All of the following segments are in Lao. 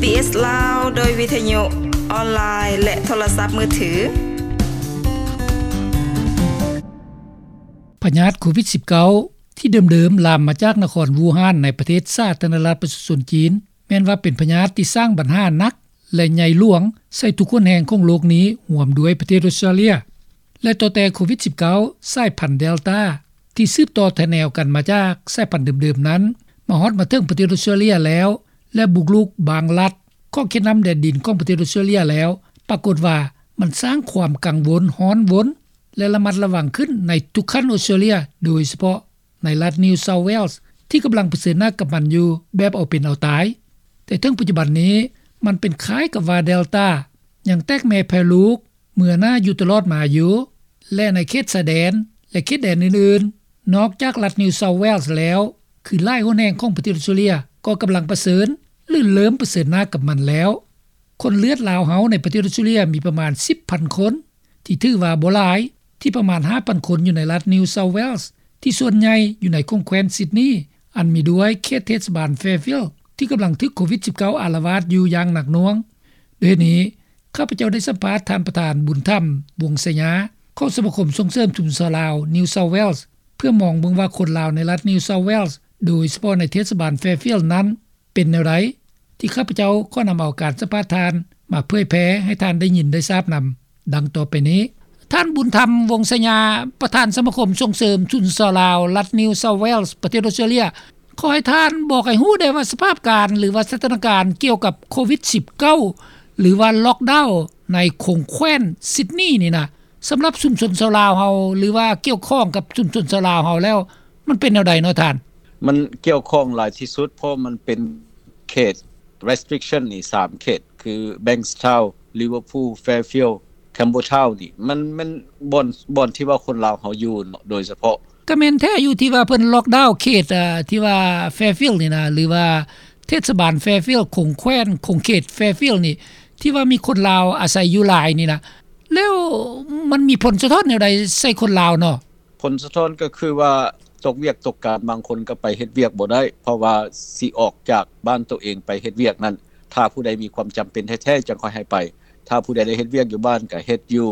ບີບີຊີ ລາວ ໂດຍວິທະຍຸອອນລາຍ ແລະ ໂທລະສັບມືຖື. ພະຍາດໂຄວິດສິບເກົ້າ ທີ່ເດີມໆລາມມາຈາກນະຄອນວູຮານ ໃນປະເທດສາທາລະນະລັດປະຊາຊົນຈີນ ແມ່ນວ່າເປັນພະຍາດທີ່ສ້າງບັນຫາໜັກ ແລະ ໃຫຍ່ຫຼວງໃສ່ທຸກຫົນແຫ່ງຂອງໂລກນີ້ ຮ່ວມດ້ວຍປະເທດອົດສະຕຣາເລຍ ແລະ ຕໍ່ແຕ່ໂຄວິດສິບເກົ້າ ສາຍພັນເດລຕາ ທີ່ສືບຕໍ່ຖະແນວກັນມາຈາກສາຍພັນເດີມໆນັ້ນ ມາຮອດມາເຖິງປະເທດອົດສະຕຣາເລຍແລ້ວ ແລະ ບຸກລຸກບາງລັດຂອງເຂດນ້ຳແດນດິນຂອງປະເທດອົດສະຕຣາເລຍແລ້ວ ປາກົດວ່າມັນສ້າງຄວາມກັງວົນຮ້ອນວົນ ແລະ ລະມັດລະວັງຂຶ້ນໃນທຸກຂັ້ນອົດສະຕຣາເລຍ ໂດຍສະເພາະໃນລັດ New South Wales ທີ່ກຳລັງປະເຊີນໜ້າກັບມັນຢູ່ແບບເອົາເປັນເອົາຕາຍ. ແຕ່ເຖິງປັດຈຸບັນນີ້ ມັນເປັນຄ້າຍກັບວ່າເດລຕາຍັງແຕກແມ່ແຜ່ລູກ ເມືອໜ້າຢູ່ຕະຫຼອດມາຢູ່ ແລະ ໃນເຂດຊາຍແດນ ແລະ ເຂດແດນອື່ນໆ ນອກຈາກລັດ New South Wales ແລ້ວ ຄືຫຼາຍຫົນແຫ່ງຂອງປະເທດອົດສະຕຣາເລຍ ກໍກຳລັງປະເຊີນ ຫຼື ເລີ່ມປະເຊີນໜ້າກັບມັນແລ້ວ. ຄົນເລືອດລາວເຮົາໃນປະເທດອົດສະຕຣາເລຍມີປະມານສິບພັນຄົນ ທີ່ຖືວ່າບໍ່ຫຼາຍ ທີ່ປະມານຫ້າພັນຄົນຢູ່ໃນລັດ New South Wales ທີ່ສ່ວນໃຫຍ່ຢູ່ໃນຂົງແຄວ້ນຊິດນີ ອັນມີດ້ວຍເຂດເທດສະບານ Fairfield ທີ່ກຳລັງຖືກໂຄວິດສິບເກົ້າ ອາລະວາດຢູ່ຢ່າງໜັກໜ່ວງ. ດ້ວຍເຫດນີ້ ຂ້າພະເຈົ້າໄດ້ສຳພາດທ່ານປະທານ ບຸນທຳ ວົງໄຊຍາ ຂອງສະມາຄົມສົ່ງເສີມຊຸມຊົນຊາວລາວ New South Wales ເພື່ອມອງເບິ່ງວ່າຄົນລາວໃນລັດ New South Wales ໂດຍສະເພາະໃນເທດສະບານ Fairfield ນັ້ນ ເປັນແນວໃດ ທີ່ຂ້າພະເຈົ້າຂໍນຳເອົາການສຳພາດທ່ານມາເຜີຍແຜ່ໃຫ້ທ່ານໄດ້ຍິນໄດ້ຊາບນຳ ດັ່ງຕໍ່ໄປນີ້. ທ່ານ ບຸນທຳ ວົງໄຊຍາ ປະທານສະມາຄົມສົ່ງເສີມຊຸມຊົນຊາວລາວ ລັດ New South Wales ປະເທດອົດສະຕຣາເລຍ ຂໍໃຫ້ທ່ານບອກໃຫ້ຮູ້ແດ່ວ່າສະພາບການ ຫຼືວ່າສະຖານະການກ່ຽວກັບໂຄວິດສິບເກົ້າ ຫຼືວ່າລັອກດາວໃນຂົງແຄວ້ນຊິດນີນີ້ນະ ສຳລັບຊຸມຊົນຊາວລາວເຮົາ ຫຼືວ່າກ່ຽວຂ້ອງກັບຊຸມຊົນຊາວລາວເຮົາແລ້ວ ມັນເປັນແນວໃດເນາະທ່ານ? ມັນກ່ຽວຂ້ອງຫຼາຍທີ່ສຸດ ເພາະມັນເປັນເຂດ restriction ນີ້ສາມເຂດ ຄື Bankstown, Liverpool, Fairfield, Campbelltown ນີ້ ມັນ ມັນບ່ອນ ບ່ອນທີ່ວ່າຄົນລາວເຮົາຢູ່ເນາະ ໂດຍສະເພາະ. ກະແມ່ນແທ້ຢູ່ທີ່ວ່າເພິ່ນລັອກດາວເຂດ ເອີ ທີ່ວ່າ Fairfield ນີ້ນະ ຫຼືວ່າເທດສະບານ Fairfield ຂົງແຄວ້ນ ຂົງເຂດ Fairfield ນີ້ ທີ່ວ່າມີຄົນລາວອາໄສຢູ່ຫຼາຍນີ້ນະ ແລ້ວມັນມີຜົນສະທ້ອນແນວໃດໃສ່ຄົນລາວເນາະ? ຜົນສະທ້ອນກໍຄືວ່າຕົກວຽກຕົກການ ບາງຄົນກໍໄປເຮັດວຽກບໍ່ໄດ້ ເພາະວ່າຊິອອກຈາກບ້ານໂຕເອງໄປເຮັດວຽກນັ້ນ ຖ້າຜູ້ໃດມີຄວາມຈຳເປັນແທ້ໆ ຈັ່ງຄ່ອຍໃຫ້ໄປ. ຖ້າຜູ້ໃດໄດ້ເຮັດວຽກຢູ່ບ້ານກໍເຮັດຢູ່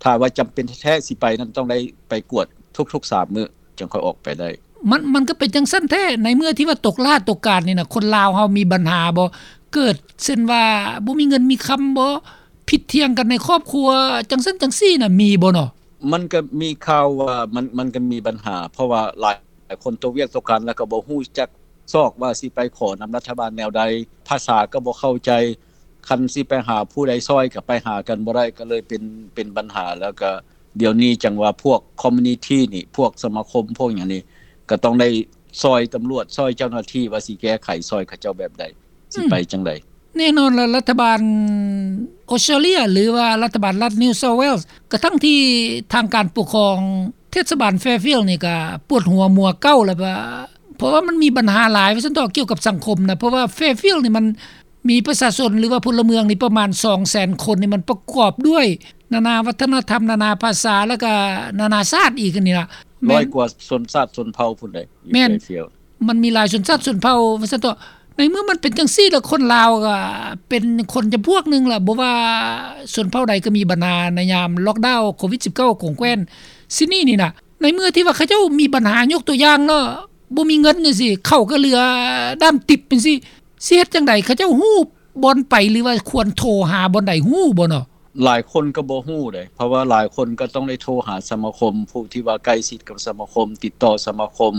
ຖ້າວ່າຈຳເປັນແທ້ໆ ຊິໄປນັ້ນຕ້ອງໄດ້ໄປກວດທຸກໆສາມມື້ ຈັ່ງຄ່ອຍອອກໄປໄດ້. ມັນ ມັນກໍເປັນຈັ່ງຊັ້ນແທ້ ໃນເມື່ອທີ່ວ່າຕົກລາດຕົກການນີ້ນະ ຄົນລາວເຮົາມີບັນຫາບໍ່? ເກີດເຊັ່ນວ່າບໍ່ມີເງິນມີຄຳບໍ່? ຜິດຖຽງກັນໃນຄອບຄົວ ຈັ່ງຊັ້ນຈັ່ງຊີ້ນະ ມີບໍ່ເນາະ? ມັນກໍມີຂ່າວວ່າມັນ ມັນກໍມີບັນຫາ ເພາະວ່າຫຼາຍຄົນຕົກວຽກຕົກການ ແລ້ວກໍບໍ່ຮູ້ຈັກຊອກວ່າຊິໄປຂໍນຳລັດຖະບານແນວໃດ ພາສາກໍບໍ່ເຂົ້າໃຈ ຄັນຊິໄປຫາຜູ້ໃດຊ່ອຍກໍໄປຫາກັນບໍ່ໄດ້ ກໍເລີຍເປັນ ເປັນບັນຫາ ແລ້ວກໍດຽວນີ້ຈັ່ງວ່າພວກ community ນີ້ ພວກສະມາຄົມ ພວກຫຍັງນີ້ ກໍຕ້ອງໄດ້ຊ່ອຍຕຳຫຼວດ ຊ່ອຍເຈົ້າໜ້າທີ່ວ່າຊິແກ້ໄຂຊ່ອຍເຂົາເຈົ້າແບບໃດ ຊິໄປຈັ່ງໃດ. ແນ່ນອນລະ ລັດຖະບານອົດສະຕຣາເລຍ ຫຼືວ່າລັດຖະບານລັດ New South Wales ກະທັງທີ່ທາງການປົກຄອງເທດສະບານ Fairfield ນີ້ກະປວດຫົວມົວເກົ້າລະ ວ່າ ເພາະວ່າມັນມີບັນຫາຫຼາຍວ່າຊັ້ນເຖາະ ກ່ຽວກັບສັງຄົມນະ ເພາະວ່າ Fairfield ນີ້ມັນມີປະຊາຊົນ ຫຼືວ່າພົນລະເມືອງນີ້ປະມານສອງແສນຄົນ ນີ້ມັນປະກອບດ້ວຍນານາວັດທະນະທຳ ນານາພາສາ ແລ້ວກະນານາຊາດອີກນີ້ລະ ແມ່ນ ຮ້ອຍກວ່າຊົນຊາດຊົນເຜົ່າພຸ້ນໃດ ຢູ່ Fairfield ມັນມີຫຼາຍຊົນຊາດຊົນເຜົ່າວ່າຊັ້ນເຖາະ. ໃນເມື່ອມັນເປັນຈັ່ງຊີ້ລະ ຄົນລາວກະເປັນຄົນຈຳພວກໜຶ່ງລະ ບໍ່ວ່າຊົນເຜົ່າໃດກໍມີບັນຫາໃນຍາມລັອກດາວໂຄວິດສິບເກົ້າ ຂົງແຄວ້ນຊິດນີນີ້ນະ. ໃນເມື່ອທີ່ວ່າເຂົາເຈົ້າມີບັນຫາ ຍົກຕົວຢ່າງເນາະ ບໍ່ມີເງິນຈັ່ງຊີ້ ເຂົ້າກໍເຫຼືອດ້າມຕິບຈັ່ງຊີ້ ຊິເຮັດຈັ່ງໃດ? ເຂົາເຈົ້າຮູ້ບ່ອນໄປ ຫຼືວ່າຄວນໂທຫາບ່ອນໃດ ຮູ້ບໍ່ເນາະ? ຫຼາຍຄົນກໍບໍ່ຮູ້ເດ້ ເພາະວ່າຫຼາຍຄົນກໍຕ້ອງໄດ້ໂທຫາສະມາຄົມ ຜູ້ທີ່ວ່າໃກ້ຊິດກັບສະມາຄົມ ຕິດຕໍ່ສະມາຄົມ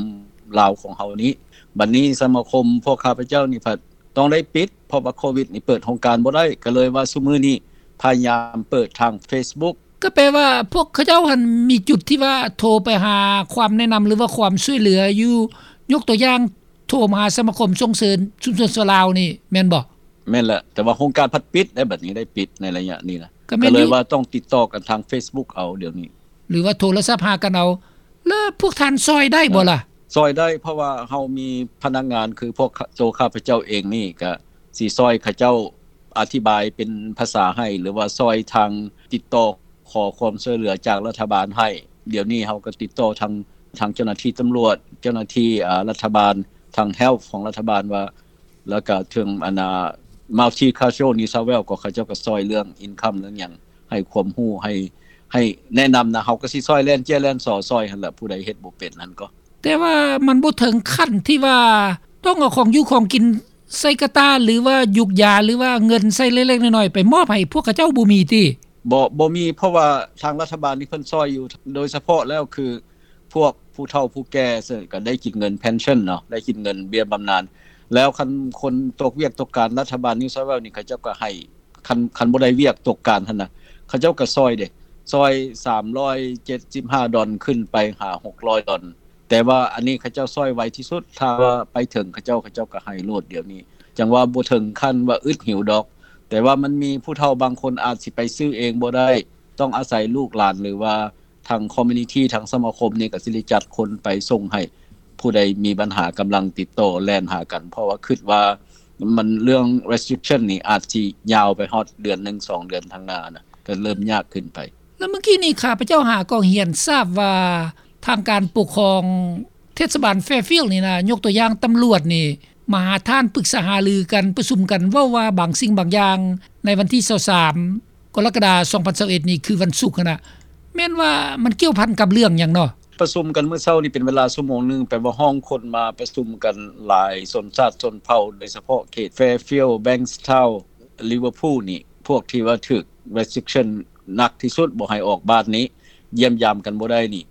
ລາວຂອງເຮົານີ້. ບັດນີ້ສະມາຄົມພວກຂ້າພະເຈົ້ານີ້ພັດຕ້ອງໄດ້ປິດ ເພາະວ່າໂຄວິດນີ້ເປີດໂຮງການບໍ່ໄດ້ ກໍເລີຍວ່າຊຸມື້ນີ້ພະຍາຍາມເປີດທາງ Facebook. ກໍແປວ່າພວກເຂົາເຈົ້າຫັ້ນມີຈຸດທີ່ວ່າໂທໄປຫາຄວາມແນະນຳ ຫຼືວ່າຄວາມຊ່ວຍເຫຼືອຢູ່ ຍົກຕົວຢ່າງ ໂທມາຫາສະມາຄົມສົ່ງເສີມຊຸມຊົນຊາວລາວນີ້ແມ່ນບໍ່? ແມ່ນແຫຼະ ແຕ່ວ່າໂຮງການພັດປິດໄດ໋ ບັດນີ້ໄດ້ປິດໃນໄລຍະນີ້ນະ ກໍແມ່ນ ກໍເລີຍວ່າຕ້ອງຕິດຕໍ່ກັນທາງ Facebook ເອົາດຽວນີ້ ຫຼືວ່າໂທລະສັບຫາກັນເອົາ. ແລ້ວພວກທ່ານຊ່ອຍໄດ້ບໍ່ລະ? ເອີ ຊ່ອຍໄດ້ ເພາະວ່າເຮົາມີພະນັກງານ ຄືພວກໂຕຂ້າພະເຈົ້າເອງນີ້ ກະຊິຊ່ອຍເຂົາເຈົ້າອະທິບາຍເປັນພາສາໃຫ້ ຫຼືວ່າຊ່ອຍທາງຕິດຕໍ່ຂໍຄວາມຊ່ວຍເຫຼືອຈາກລັດຖະບານໃຫ້. ດຽວນີ້ເຮົາກໍຕິດຕໍ່ທາງ ທາງເຈົ້າໜ້າທີ່ຕຳຫຼວດ ເຈົ້າໜ້າທີ່ ອາ ລັດຖະບານ ທາງ Health ຂອງລັດຖະບານວ່າ ແລ້ວກະເຖິງອັນນ່າ Multicultural New South Wales ກໍເຂົາເຈົ້າກໍຊ່ອຍເລື່ອງ income ເລື່ອງຫຍັງ ໃຫ້ຄວາມຮູ້ ໃຫ້ ໃຫ້ແນະນຳນະ. ເຮົາກໍຊິຊ່ອຍແລ່ນເຈ້ຍແລ່ນຊໍ ຊ່ອຍຫັ້ນລະ ຜູ້ໃດເຮັດບໍ່ເປັນຫັ້ນກໍ. ແຕ່ວ່າມັນບໍ່ເຖິງຂັ້ນທີ່ວ່າຕ້ອງເອົາຂອງຢູ່ຂອງກິນໃສ່ກະຕ່າ ຫຼືວ່າຢູກຢາ ຫຼືວ່າເງິນໃສ່ເລັກໆນ້ອຍໆ ໄປມອບໃຫ້ພວກເຂົາເຈົ້າ ບໍ່ມີຕິ? ບໍ່ ບໍ່ມີ ເພາະວ່າທາງລັດຖະບານນີ້ເພິ່ນຊ່ອຍຢູ່ ໂດຍສະເພາະແລ້ວຄື ພວກຜູ້ເຖົ້າຜູ້ແກ່ ເຊິ່ງກໍໄດ້ກິນເງິນ pension ເນາະ ໄດ້ກິນເງິນເບ້ຍບຳນານ. ແລ້ວຄັນຄົນຕົກວຽກຕົກການ ລັດຖະບານ New South Wales ນີ້ ເຂົາເຈົ້າກໍໃຫ້ ຄັນ ຄັນບໍ່ໄດ້ວຽກຕົກການຫັ້ນນະ ເຂົາເຈົ້າກໍຊ່ອຍເດ້ ຊ່ອຍສາມຮ້ອຍເຈັດສິບຫ້າດອນ ຂຶ້ນໄປຫາຫົກຮ້ອຍດອນ. ແຕ່ວ່າອັນນີ້ເຂົາເຈົ້າຊ່ອຍໄວທີ່ສຸດ ຖ້າວ່າໄປເຖິງເຂົາເຈົ້າ ເຂົາເຈົ້າກໍໃຫ້ໂລດດຽວນີ້. ຈັ່ງວ່າບໍ່ເຖິງຂັ້ນວ່າອຶດຫິວດອກ ແຕ່ວ່າມັນມີຜູ້ເຖົ້າບາງຄົນອາດຊິໄປຊື້ເອງບໍ່ໄດ້ ຕ້ອງອາໄສລູກຫຼານ ຫຼືວ່າທາງ community ທາງສະມາຄົມນີ້ກໍຊິໄດ້ຈັດຄົນໄປສົ່ງໃຫ້. ຜູ້ໃດມີບັນຫາກຳລັງຕິດຕໍ່ແລ່ນຫາກັນ ເພາະວ່າຄິດວ່າມັນເລື່ອງ restriction ນີ້ອາດຊິຍາວໄປຮອດເດືອນໜຶ່ງສອງເດືອນທາງໜ້ານະ ກໍເລີ່ມຍາກຂຶ້ນໄປ. ແລ້ວເມື່ອກີ້ນີ້ຂ້າພະເຈົ້າຫາກໍຮຽນຊາບວ່າ ທາງການປົກຄອງເທດສະບານ Fairfield ນີ້ນະ ຍົກຕົວຢ່າງຕຳຫຼວດນີ້ ມາຫາທ່ານປຶກສາຫາລືກັນ ປະຊຸມກັນ ເວົ້າວ່າບາງສິ່ງບາງຢ່າງ ໃນວັນທີຊາວສາມ ກໍລະກະດາ ສອງພັນຊາວເອັດນີ້ ຄືວັນສຸກຫັ້ນນະ ແມ່ນວ່າມັນກ່ຽວພັນກັບເລື່ອງຫຍັງເນາະ? ປະຊຸມກັນມື້ເຊົ້ານີ້ເປັນເວລາຊົ່ວໂມງໜຶ່ງ ແປວ່າຮ້ອງຄົນມາປະຊຸມກັນຫຼາຍຊົນຊາດຊົນເຜົ່າ ໂດຍສະເພາະເຂດ Fairfield Bankstown Liverpool ນີ້ ພວກທີ່ວ່າຖືກ restriction ໜັກທີ່ສຸດ ບໍ່ໃຫ້ອອກບ້ານນີ້ ຢ້ຽມຢາມກັນບໍ່ໄດ້ນີ້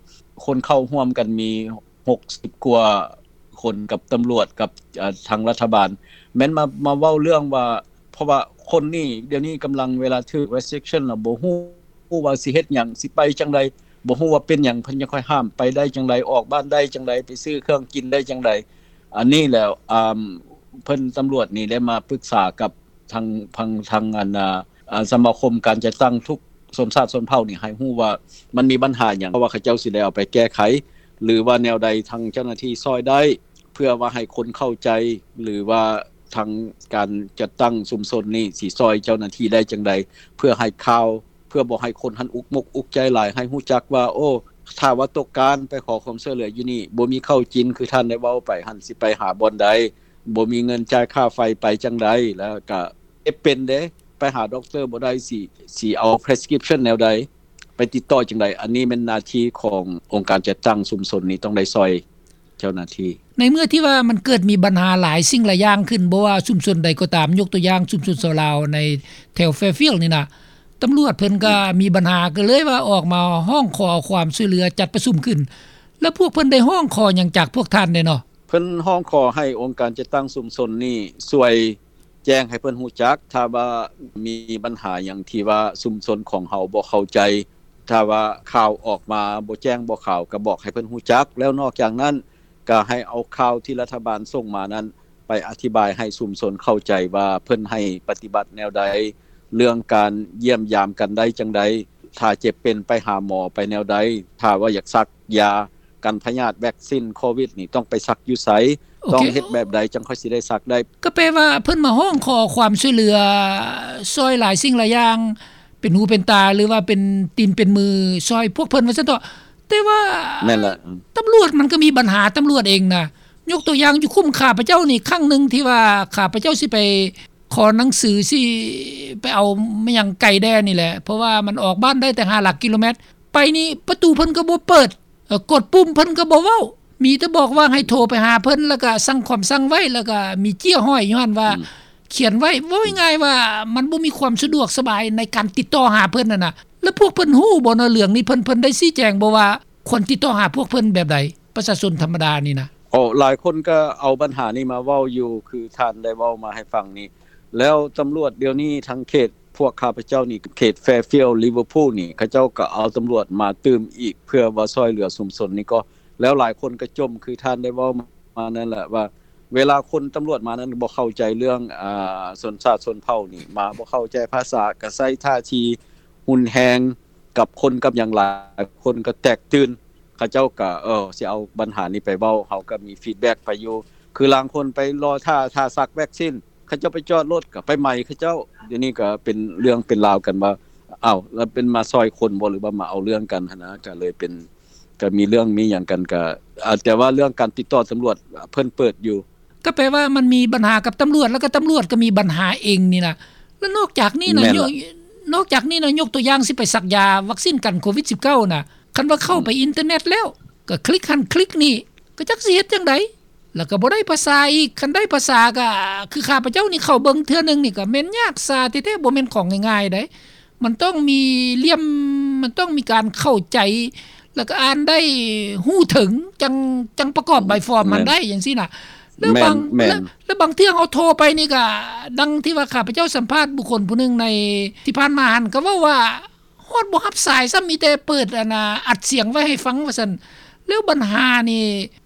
ຄົນເຂົ້າຮ່ວມກັນມີຫົກສິບກວ່າຄົນ ກັບຕຳຫຼວດ ກັບ ເອີ ທາງລັດຖະບານ ແມ່ນມາ ມາເວົ້າເລື່ອງວ່າ ເພາະວ່າຄົນນີ້ ດຽວນີ້ກຳລັງ ເວລາຖືກ restriction ລະບໍ່ຮູ້ ຮູ້ວ່າຊິເຮັດຫຍັງ ຊິໄປຈັ່ງໃດ ບໍ່ຮູ້ວ່າເປັນຫຍັງ ເພິ່ນຈັ່ງຄ່ອຍຫ້າມ ໄປໄດ້ຈັ່ງໃດ ອອກບ້ານໄດ້ຈັ່ງໃດ ໄປຊື້ເຄື່ອງກິນໄດ້ຈັ່ງໃດ. ອັນນີ້ແລ້ວ ອາ ເພິ່ນ ຕຳຫຼວດນີ້ໄດ້ມາປຶກສາກັບທາງ ທາງ ທາງ ອັນ ອາ ສະມາຄົມການຈັດຕັ້ງທຸກຊົນຊາດຊົນເຜົ່ານີ້ ໃຫ້ຮູ້ວ່າມັນມີບັນຫາຫຍັງ ເພາະວ່າເຂົາເຈົ້າຊິໄດ້ເອົາໄປແກ້ໄຂ ຫຼືວ່າແນວໃດ ທາງເຈົ້າໜ້າທີ່ຊ່ອຍໄດ້ ເພື່ອວ່າໃຫ້ຄົນເຂົ້າໃຈ ຫຼືວ່າທາງການຈັດຕັ້ງຊຸມຊົນນີ້ຊິຊ່ອຍເຈົ້າໜ້າທີ່ໄດ້ຈັ່ງໃດ ເພື່ອໃຫ້ຂ່າວ ເພື່ອບໍ່ໃຫ້ຄົນຫັ້ນອຸກມົກອຸກໃຈຫຼາຍ ໃຫ້ຮູ້ຈັກວ່າ ໂອ້ ຖ້າວ່າຕົກການໄປຂໍຄວາມຊ່ວຍເຫຼືອຢູ່ນີ້ ບໍ່ມີເຂົ້າກິນ ຄືທ່ານໄດ້ເວົ້າໄປຫັ້ນ ຊິໄປຫາບ່ອນໃດ ບໍ່ມີເງິນຈ່າຍຄ່າໄຟ ໄປຈັ່ງໃດ ແລ້ວກະເຈັບເປັນເດ້ ໄປຫາດັອກເຕີບໍ່ໄດ້ ຊິ ຊິເອົາ prescription ແນວໃດ ໄປຕິດຕໍ່ຈັ່ງໃດ. ອັນນີ້ແມ່ນໜ້າທີ່ຂອງອົງການຈັດຕັ້ງຊຸມຊົນນີ້ ຕ້ອງໄດ້ຊ່ອຍ ເຈົ້າໜ້າທີ່. ໃນເມື່ອທີ່ວ່າມັນເກີດມີບັນຫາຫຼາຍສິ່ງຫຼາຍຢ່າງຂຶ້ນ ບໍ່ວ່າຊຸມຊົນໃດກໍຕາມ ຍົກຕົວຢ່າງຊຸມຊົນຊາວລາວໃນແຖວ Fairfield ນີ້ນະ ຕຳຫຼວດເພິ່ນກໍມີບັນຫາ ກໍເລີຍວ່າອອກມາຮ້ອງຂໍຄວາມຊ່ວຍເຫຼືອ ຈັດປະຊຸມຂຶ້ນ ແລ້ວພວກເພິ່ນໄດ້ຮ້ອງຂໍຫຍັງຈາກພວກທ່ານແດ່ເນາະ? ເພິ່ນຮ້ອງຂໍໃຫ້ອົງການຈັດຕັ້ງຊຸມຊົນນີ້ຊ່ວຍ ແຈ້ງໃຫ້ເພິ່ນຮູ້ຈັກ ຖ້າວ່າມີບັນຫາຫຍັງທີ່ວ່າຊຸມຊົນຂອງເຮົາບໍ່ເຂົ້າໃຈ ຖ້າວ່າຂ່າວອອກມາບໍ່ແຈ້ງບໍ່ຂາວ ກໍບອກໃຫ້ເພິ່ນຮູ້ຈັກ ແລ້ວນອກຈາກນັ້ນ ກໍໃຫ້ເອົາຂ່າວທີ່ລັດຖະບານສົ່ງມານັ້ນ ໄປອະທິບາຍໃຫ້ຊຸມຊົນເຂົ້າໃຈວ່າເພິ່ນໃຫ້ປະຕິບັດແນວໃດ ເລື່ອງການຢ້ຽມຢາມກັນໄດ້ຈັ່ງໃດ ຖ້າເຈັບເປັນໄປຫາໝໍໄປແນວໃດ ຖ້າວ່າຢາກສັກຢາ ກັນພະຍາດ ແວັກຊິນໂຄວິດນີ້ ຕ້ອງໄປສັກຢູ່ໃສ ໂອເຄ ຕ້ອງເຮັດແບບໃດ ຈັ່ງຄ່ອຍຊິໄດ້ສັກໄດ້. ກໍແປວ່າເພິ່ນມາຮ້ອງຂໍຄວາມຊ່ວຍເຫຼືອ ຊ່ອຍຫຼາຍສິ່ງຫຼາຍຢ່າງ ເປັນຫູເປັນຕາ ຫຼືວ່າເປັນຕີນເປັນມື ຊ່ອຍພວກເພິ່ນວ່າຊັ້ນເຖາະ. ແຕ່ວ່າ ແມ່ນລະ ອືມ ຕຳຫຼວດມັນກໍມີບັນຫາຕຳຫຼວດເອງນະ. ຍົກຕົວຢ່າງຢູ່ຄຸ້ມຂ້າພະເຈົ້ານີ້ ຄັ້ງໜຶ່ງທີ່ວ່າຂ້າພະເຈົ້າຊິໄປຂໍໜັງສື ຊິໄປເອົາມາຫຍັງໄກແດ່ນີ້ແຫຼະ ເພາະວ່າມັນອອກບ້ານໄດ້ແຕ່ຫ້າຫຼັກກິໂລແມັດ ໄປນີ້ປະຕູເພິ່ນກໍບໍ່ເປີດ ເອີ ກົດປຸ່ມເພິ່ນກໍບໍ່ເວົ້າ ມີແຕ່ບອກວ່າໃຫ້ໂທໄປຫາເພິ່ນ ແລ້ວກໍສັ່ງຄວາມສັ່ງໄວ້ ແລ້ວກໍມີເຈ້ຍຫ້ອຍຢູ່ຫັ້ນວ່າ ອືມ ຂຽນໄວ້. ເວົ້າງ່າຍໆວ່າມັນບໍ່ມີຄວາມສະດວກສະບາຍໃນການຕິດຕໍ່ຫາເພິ່ນຫັ້ນນະ. ແລ້ວພວກເພິ່ນຮູ້ບໍ່ເນາະເລື່ອງນີ້? ເພິ່ນ ເພິ່ນໄດ້ຊີ້ແຈງບໍ່ວ່າຄວນຕິດຕໍ່ຫາພວກເພິ່ນແບບໃດ? ປະຊາຊົນທຳມະດານີ້ນະ. ໂອ້ ຫຼາຍຄົນກໍເອົາບັນຫານີ້ມາເວົ້າຢູ່ ຄືທ່ານໄດ້ເວົ້າມາໃຫ້ຟັງນີ້ ແລ້ວຕຳຫຼວດດຽວນີ້ທາງເຂດ ພວກຂ້າພະເຈົ້ານີ້ ເຂດ Fairfield Liverpool ນີ້ ເຂົາເຈົ້າກໍເອົາຕຳຫຼວດມາຕື່ມອີກ ເພື່ອວ່າຊ່ອຍເຫຼືອຊຸມຊົນນີ້ກໍ ແລ້ວຫຼາຍຄົນກໍຈົ່ມ ຄືທ່ານໄດ້ເວົ້າມານັ້ນແຫຼະວ່າ ເວລາຄົນຕຳຫຼວດມານັ້ນບໍ່ເຂົ້າໃຈເລື່ອງ ອາ ຊົນຊາດຊົນເຜົ່ານີ້ ມາບໍ່ເຂົ້າໃຈພາສາ ກໍໃຊ້ທ່າທີຮຸນແຮງກັບຄົນກັບຫຍັງ ຫຼາຍຄົນກໍແຕກຕື່ນ ເຂົາເຈົ້າກໍ ເອີ ຊິເອົາບັນຫານີ້ໄປເວົ້າ ເຮົາກໍມີ feedback ໄປຢູ່ ຄືລາງຄົນໄປລໍຖ້າ ຖ້າສັກແວັກຊິນ ເຂົາເຈົ້າໄປຈອດລົດກໍໄປໄໝເຂົາເຈົ້າ. ດຽວນີ້ກໍເປັນເລື່ອງເປັນລາວກັນວ່າ ອ້າວ ແລ້ວເປັນມາຊ່ອຍຄົນບໍ່ ຫຼືວ່າມາເອົາເລື່ອງກັນຫັ້ນນະ ກໍເລີຍເປັນ ກໍມີເລື່ອງມີຫຍັງກັນ ກໍ ອາ ແຕ່ວ່າເລື່ອງການຕິດຕໍ່ຕຳຫຼວດ ເພິ່ນເປີດຢູ່ ກໍແປວ່າມັນມີບັນຫາກັບຕຳຫຼວດ ແລ້ວກໍຕຳຫຼວດກໍມີບັນຫາເອງນີ້ນະ. ແລ້ວນອກຈາກນີ້ນະ ແມ່ນລະ ຍົກ ນອກຈາກນີ້ນະ ຍົກຕົວຢ່າງ ຊິໄປສັກຢາວັກຊີນກັນໂຄວິດສິບເກົ້ານະ ຄັນວ່າເຂົ້າໄປ ອືມ ອິນເຕີເນັດແລ້ວ ກໍຄລິກຫັ້ນຄລິກນີ້ ກໍຈັກຊິເຮັດຈັ່ງໃດ ແລ້ວກໍບໍ່ໄດ້ພາສາອີກ. ຄັນໄດ້ພາສາກໍ ຄືຂ້າພະເຈົ້ານີ້ເຂົ້າເບິ່ງເທື່ອໜຶ່ງນີ້ ກໍແມ່ນຍາກຊາແທ້ໆ ບໍ່ແມ່ນຂອງງ່າຍໆໃດ. ມັນຕ້ອງມີຫຼ່ຽມ ມັນຕ້ອງມີການເຂົ້າໃຈ ແລ້ວກໍອ່ານໄດ້ຮູ້ເຖິງ ຈັ່ງ ຈັ່ງປະກອບໃບຟອມຫັ້ນໄດ້ ຈັ່ງຊີ້ນະ. ແລ້ວບາງ ແມ່ນ ແລ້ວ ແລ້ວບາງເທື່ອເຮົາໂທໄປນີ້ກໍ ດັ່ງທີ່ວ່າຂ້າພະເຈົ້າສຳພາດບຸກຄົນຜູ້ໜຶ່ງໃນທີ່ຜ່ານມາຫັ້ນ ກໍເວົ້າວ່າຮອດບໍ່ຮັບສາຍຊ້ຳ ມີແຕ່ເປີດ ອັນນ່າ ອັດສຽງໄວ້ໃຫ້ຟັງວ່າຊັ້ນ. ແລ້ວບັນຫານີ້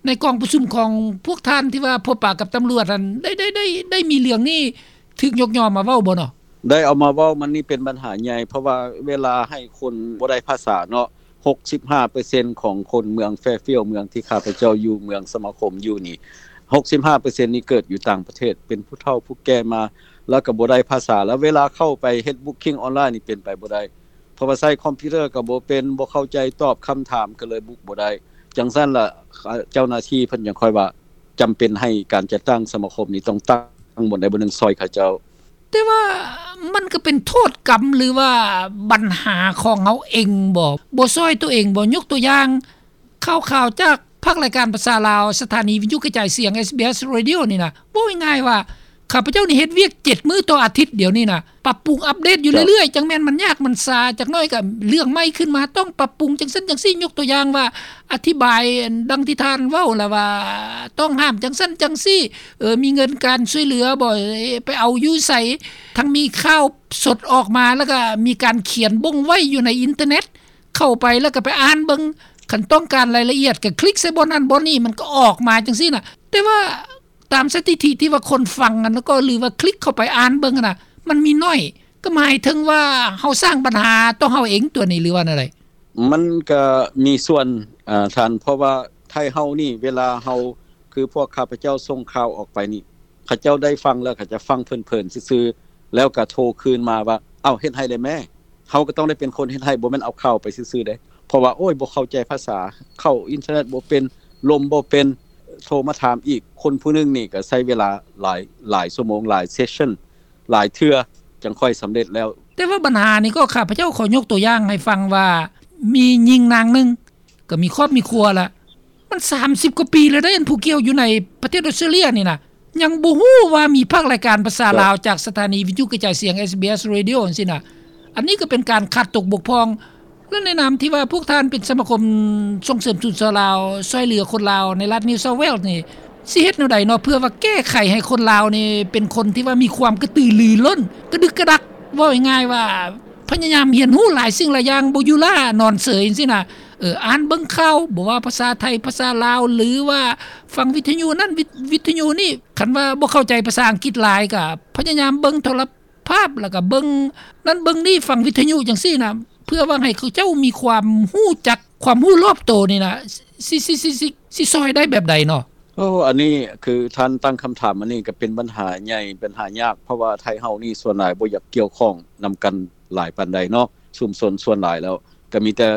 ໃນກອງປະຊຸມຂອງພວກທ່ານທີ່ວ່າພົບປະກັບຕຳຫຼວດຫັ້ນ ໄດ້ ໄດ້ ໄດ້ ໄດ້ມີເລື່ອງນີ້ຖືກຍົກຍ້ອນມາເວົ້າບໍ່ເນາະ? ໄດ້ເອົາມາເວົ້າ ມັນນີ້ເປັນບັນຫາໃຫຍ່ ເພາະວ່າເວລາໃຫ້ຄົນບໍ່ໄດ້ພາສາເນາະ ຫົກສິບຫ້າເປີເຊັນຂອງຄົນເມືອງແຟຟຽວ ເມືອງທີ່ຂ້າພະເຈົ້າຢູ່ ເມືອງສະມາຄົມຢູ່ນີ້ ຫົກສິບຫ້າເປີເຊັນນີ້ເກີດຢູ່ຕ່າງປະເທດ ເປັນຜູ້ເຖົ້າຜູ້ແກ່ມາ ແລ້ວກໍບໍ່ໄດ້ພາສາ ແລ້ວເວລາເຂົ້າໄປເຮັດບຸກຄິງອອນລາຍນີ້ເປັນໄປບໍ່ໄດ້ ເພາະວ່າໃຊ້ຄອມພິວເຕີກໍບໍ່ເປັນ ບໍ່ເຂົ້າໃຈ ຕອບຄຳຖາມກໍເລີຍບຸກບໍ່ໄດ້. ຈັ່ງຊັ້ນລະ ເຈົ້າໜ້າທີ່ເພິ່ນຈັ່ງຄ່ອຍວ່າ ຈຳເປັນໃຫ້ການຈັດຕັ້ງສະມາຄົມນີ້ຕ້ອງຕັ້ງບ່ອນໃດບ່ອນໜຶ່ງຊ່ອຍເຂົາເຈົ້າ. ແຕ່ວ່າມັນກໍເປັນໂທດກຳ ຫຼືວ່າບັນຫາຂອງເຮົາເອງບໍ? ບໍ່ຊ່ອຍຕົວເອງບໍ? ຍົກຕົວຢ່າງ ຂ່າວໆຈາກພາກລາຍການພາສາລາວ ສະຖານີວິທະຍຸກະຈາຍສຽງ SBS Radio ນີ້ນະ ເວົ້າງ່າຍໆວ່າ ຂ້າພະເຈົ້ານີ້ເຮັດວຽກເຈັດມື້ຕໍ່ອາທິດດຽວນີ້ນະ ປັບປຸງອັບເດດຢູ່ເລື້ອຍໆ ຈັ່ງແມ່ນມັນຍາກມັນຊາ ຈັກໜ້ອຍກໍເລື່ອງໃໝ່ຂຶ້ນມາ ຕ້ອງປັບປຸງຈັ່ງຊັ້ນຈັ່ງຊີ້. ຍົກຕົວຢ່າງວ່າ ອະທິບາຍດັ່ງທີ່ທ່ານເວົ້າລະວ່າ ຕ້ອງຫ້າມຈັ່ງຊັ້ນຈັ່ງຊີ້ ເອີ ມີເງິນການຊ່ວຍເຫຼືອບໍ່ ເອີ ໄປເອົາຢູ່ໃສ ທັງມີຂ່າວສົດອອກມາ ແລ້ວກໍມີການຂຽນບົ່ງໄວ້ຢູ່ໃນອິນເຕີເນັດ ເຂົ້າໄປແລ້ວກໍໄປອ່ານເບິ່ງ ຄັນຕ້ອງການລາຍລະອຽດກໍຄລິກໃສ່ບ່ອນນັ້ນບ່ອນນີ້ ມັນກໍອອກມາຈັ່ງຊີ້ນະ. ແຕ່ວ່າ ຕາມສະຖິຕິທີ່ວ່າຄົນຟັງຫັ້ນ ແລ້ວກໍ ຫຼືວ່າຄລິກເຂົ້າໄປອ່ານເບິ່ງຫັ້ນນະ ມັນມີໜ້ອຍ ກໍໝາຍເຖິງວ່າເຮົາສ້າງບັນຫາຕໍ່ເຮົາເອງຕົວນີ້ ຫຼືວ່າແນວໃດ? ມັນກໍມີສ່ວນ ອາ ທ່ານ ເພາະວ່າໄທເຮົານີ້ ເວລາເຮົາ ຄືພວກຂ້າພະເຈົ້າສົ່ງຂ່າວອອກໄປນີ້ ເຂົາເຈົ້າໄດ້ຟັງແລ້ວ ເຂົາຈະຟັງເພີນໆຊື່ໆ ແລ້ວກໍໂທຄືນມາວ່າ ເອົ້າ ເຮັດໃຫ້ແດ່ແມ້. ເຮົາກໍຕ້ອງໄດ້ເປັນຄົນເຮັດໃຫ້ ບໍ່ແມ່ນເອົາຂ່າວໄປຊື່ໆເດ້ ເພາະວ່າ ໂອ້ຍ ບໍ່ເຂົ້າໃຈພາສາ ເຂົ້າອິນເຕີເນັດບໍ່ເປັນ ລົມບໍ່ເປັນ ໂທມາຖາມອີກ. ຄົນຜູ້ໜຶ່ງນີ້ກໍໃຊ້ເວລາຫຼາຍ ຫຼາຍຊົ່ວໂມງ ຫຼາຍເຊັສຊັນ ຫຼາຍເທື່ອ ຈັ່ງຄ່ອຍສຳເລັດແລ້ວ. ແຕ່ວ່າບັນຫານີ້ກໍ ຂ້າພະເຈົ້າຂໍຍົກຕົວຢ່າງໃຫ້ຟັງວ່າ ມີຍິງນາງໜຶ່ງ ກໍມີຄອບມີຄົວລະ ມັນສາມສິບກວ່າປີແລ້ວເດ້ ອັນຜູ້ກ່ຽວຢູ່ໃນປະເທດອອສເຕຣເລຍນີ້ນະ ຍັງບໍ່ຮູ້ວ່າມີພາກລາຍການພາສາລາວຈາກສະຖານີວິທະຍຸກະຈາຍສຽງ SBS Radio ຈັ່ງຊີ້ນະ. ອັນນີ້ກໍເປັນການຂາດຕົກບົກຜ່ອງ ແລະ ໃນນາມທີ່ວ່າພວກທ່ານເປັນສະມາຄົມສົ່ງເສີມສູນເຊົາລາວ ຊ່ວຍເຫຼືອຄົນລາວໃນລັດ New South Wales ນີ້ ຊິເຮັດແນວໃດເນາະ ເພື່ອວ່າແກ້ໄຂໃຫ້ຄົນລາວນີ້ເປັນຄົນທີ່ວ່າມີຄວາມກະຕືລືລົ້ນ ກະດຶກກະດັກ ເວົ້າງ່າຍໆວ່າ ພະຍາຍາມຮຽນຮູ້ຫຼາຍສິ່ງຫຼາຍຢ່າງ ບໍ່ຢູ່ລ້ານອນເສີຍຈັ່ງຊີ້ນະ. ເອີ ອ່ານເບິ່ງຂ່າວ ບໍ່ວ່າພາສາໄທ ພາສາລາວ ຫຼືວ່າຟັງວິທະຍຸນັ້ນ ວິ ວິທະຍຸນີ້ ຄັນວ່າບໍ່ເຂົ້າໃຈພາສາອັງກິດຫຼາຍ ກະພະຍາຍາມເບິ່ງໂທລະພາບ ແລ້ວກະເບິ່ງນັ້ນເບິ່ງນີ້ ຟັງວິທະຍຸຈັ່ງຊີ້ນະ ເພື່ອຫວັງໃຫ້ເຂົາເຈົ້າມີຄວາມຮູ້ຈັກ ຄວາມຮູ້ລອບໂຕນີ້ນະ ຊິ ຊິ ຊິ ຊິ ຊິຊ່ອຍໄດ້ແບບໃດເນາະ? ໂອ້ ອັນນີ້ຄືທ່ານຕັ້ງຄຳຖາມ ອັນນີ້ກໍເປັນບັນຫາໃຫຍ່ ບັນຫາຍາກ ເພາະວ່າໄທເຮົານີ້ສ່ວນຫຼາຍບໍ່ຢາກກ່ຽວຂ້ອງນຳກັນຫຼາຍປານໃດເນາະ. ຊຸມຊົນສ່ວນຫຼາຍແລ້ວກໍມີແຕ່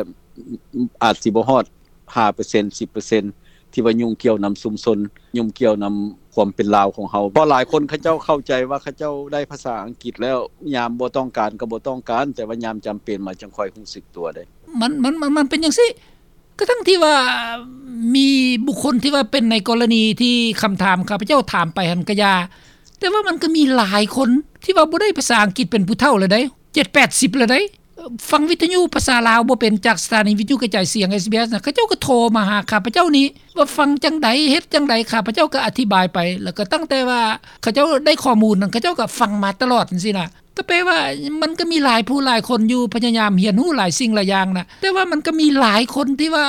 ອາດຊິບໍ່ຮອດຫ້າເປີເຊັນ ສິບເປີເຊັນ ທີ່ວ່າຫຍຸ້ງກ່ຽວນຳຊຸມຊົນ ຫຍຸ້ງກ່ຽວນຳຄວາມເປັນລາວຂອງເຮົາ. ເພາະຫຼາຍຄົນເຂົາເຈົ້າເຂົ້າໃຈວ່າເຂົາເຈົ້າໄດ້ພາສາອັງກິດແລ້ວ ຍາມບໍ່ຕ້ອງການກໍບໍ່ຕ້ອງການ ແຕ່ວ່າຍາມຈຳເປັນມາຈັ່ງຄ່ອຍຮູ້ສຶກຕົວເດ້. ມັນ ມັນ ມັນ ມັນເປັນຈັ່ງຊີ້. ກະທັ່ງທີ່ວ່າມີບຸກຄົນທີ່ວ່າເປັນໃນກໍລະນີທີ່ຄຳຖາມຂ້າພະເຈົ້າຖາມໄປຫັ້ນກະຢ່າ, ແຕ່ວ່າມັນກະມີຫຼາຍຄົນທີ່ວ່າບໍ່ໄດ້ພາສາອັງກິດເປັນຜູ້ເຖົ້າແລ້ວໃດ໋ ເຈັດແປດສິບແລ້ວໃດ໋, ຟັງວິທະຍຸພາສາລາວບໍ່ເປັນ ຈາກສະຖານີວິທະຍຸກະຈາຍສຽງ ເອສບີເອສ ນະ, ເຂົາເຈົ້າກະໂທມາຫາຂ້າພະເຈົ້ານີ້ວ່າຟັງຈັ່ງໃດ ເຮັດຈັ່ງໃດ, ຂ້າພະເຈົ້າກະອະທິບາຍໄປ, ແລ້ວກະຕັ້ງແຕ່ວ່າເຂົາເຈົ້າໄດ້ຂໍ້ມູນນັ້ນ ເຂົາເຈົ້າກະຟັງມາຕະຫຼອດຈັ່ງຊີ້ນະ. ກະແປວ່າມັນກະມີຫຼາຍຜູ້ຫຼາຍຄົນຢູ່ ພະຍາຍາມຮຽນຮູ້ຫຼາຍສິ່ງຫຼາຍຢ່າງນະ, ແຕ່ວ່າມັນກະມີຫຼາຍຄົນທີ່ວ່າ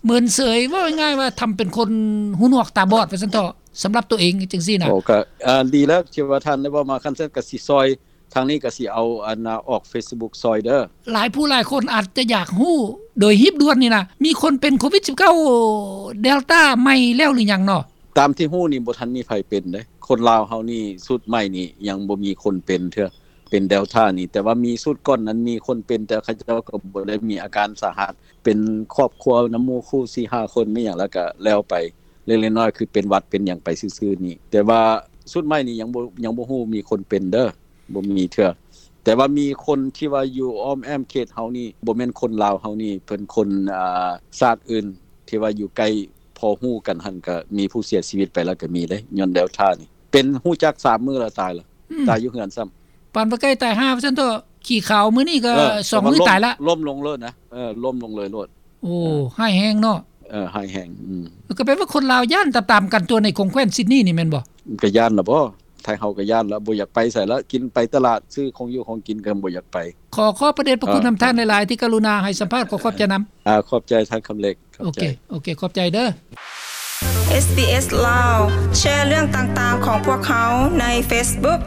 ເມີນເສີຍ, ເວົ້າງ່າຍໆວ່າທຳເປັນຄົນຫູໜວກຕາບອດວ່າຊັ້ນເຖາະ ສຳລັບໂຕເອງຈັ່ງຊີ້ນະ. ໂອ້ ກະ ອາ ດີແລ້ວທີ່ວ່າທ່ານໄດ້ເວົ້າມາ, ຄັນຊັ້ນກະຊິຊ່ອຍ, ທາງນີ້ກະຊິເອົາ ອັນ ອອກເຟສບຸກຊ່ອຍເດີ. ຫຼາຍຜູ້ຫຼາຍຄົນອາດຈະຢາກຮູ້ໂດຍຮີບດ່ວນນີ້ນະ, ມີຄົນເປັນໂຄວິດສິບເກົ້າ ເດລຕາໃໝ່ແລ້ວຫຼືຍັງເນາະ? ຕາມທີ່ຮູ້ນີ້ບໍ່ທັນມີໃຜເປັນເດ້. ຄົນລາວເຮົານີ້ຊຸດໃໝ່ນີ້ຍັງບໍ່ມີຄົນເປັນເທື່ອ, ເປັນເດລຕານີ້, ແຕ່ວ່າມີຊຸດກ່ອນນັ້ນມີຄົນເປັນ, ແຕ່ເຂົາເຈົ້າກໍບໍ່ໄດ້ມີອາການສາຫັດ, ເປັນຄອບຄົວນຳໝູ່ຄູ່ສີ່ຫ້າຄົນ ມີຫຍັງແລ້ວກໍແລ້ວໄປ. ເລັກໆນ້ອຍໆ ຄືເປັນຫວັດເປັນຫຍັງໄປຊື່ໆນີ້. ແຕ່ວ່າຊຸດໃໝ່ນີ້ຍັງບໍ່ ຍັງບໍ່ຮູ້ມີຄົນເປັນເດີ້ ບໍ່ມີເທື່ອ. ແຕ່ວ່າມີຄົນທີ່ວ່າຢູ່ອ້ອມແອ້ມເຂດເຮົານີ້ ບໍ່ແມ່ນຄົນລາວເຮົານີ້ ເປັນຄົນ ອ່າ ຊາດອື່ນທີ່ວ່າຢູ່ໃກ້ ພໍຮູ້ກັນຫັ້ນ ກໍມີຜູ້ເສຍຊີວິດໄປແລ້ວກໍມີເດ້ ຍ້ອນເດລຕ້ານີ້ ເປັນຮູ້ຈັກສາມມື້ແລ້ວ ຕາຍແລ້ວ ອືມ ຕາຍຢູ່ເຮືອນຊ້ຳ. ປານວ່າໃກ້ຕາຍຫ່າວ່າຊັ້ນເຖາະ ຂີ້ຂາວມື້ນີ້ກໍ ເອີ ສອງມື້ຕາຍລະ ລົ້ມລົງໂລດນະ. ເອີ ລົ້ມລົງເລີຍໂລດ. ໂອ້ ເອີ ຮ້າຍແຮງເນາະ. ເອີ ຮ້າຍແຮງ. ອືມ ກໍແປວ່າຄົນລາວຢ້ານຕາມໆກັນຕົວະ ໃນຂົງແຂວນຊິດນີນີ້ແມ່ນບໍ່? ກໍຢ້ານລະບໍ? ໄທເຮົາກໍຢ້ານລະ ບໍ່ຢາກໄປໃສລະ ກິນໄປຕະຫຼາດ ຊື້ຂອງຢູ່ຂອງກິນກໍບໍ່ຢາກໄປ. ຂໍຂອບພະເດດພະຄຸນນຳທ່ານຫຼາຍໆ ທີ່ກະລຸນາໃຫ້ສຳພາດ. ຂໍຂອບໃຈນຳ. ອາ ຂອບໃຈທ່ານຄຳເລັກ. ໂອເຄ ໂອເຄ ຂອບໃຈເດີ້. ເອສບີເອສ ລາວ ແຊເລື່ອງຕ່າງໆຂອງພວກເຮົາໃນເຟສບຸກ.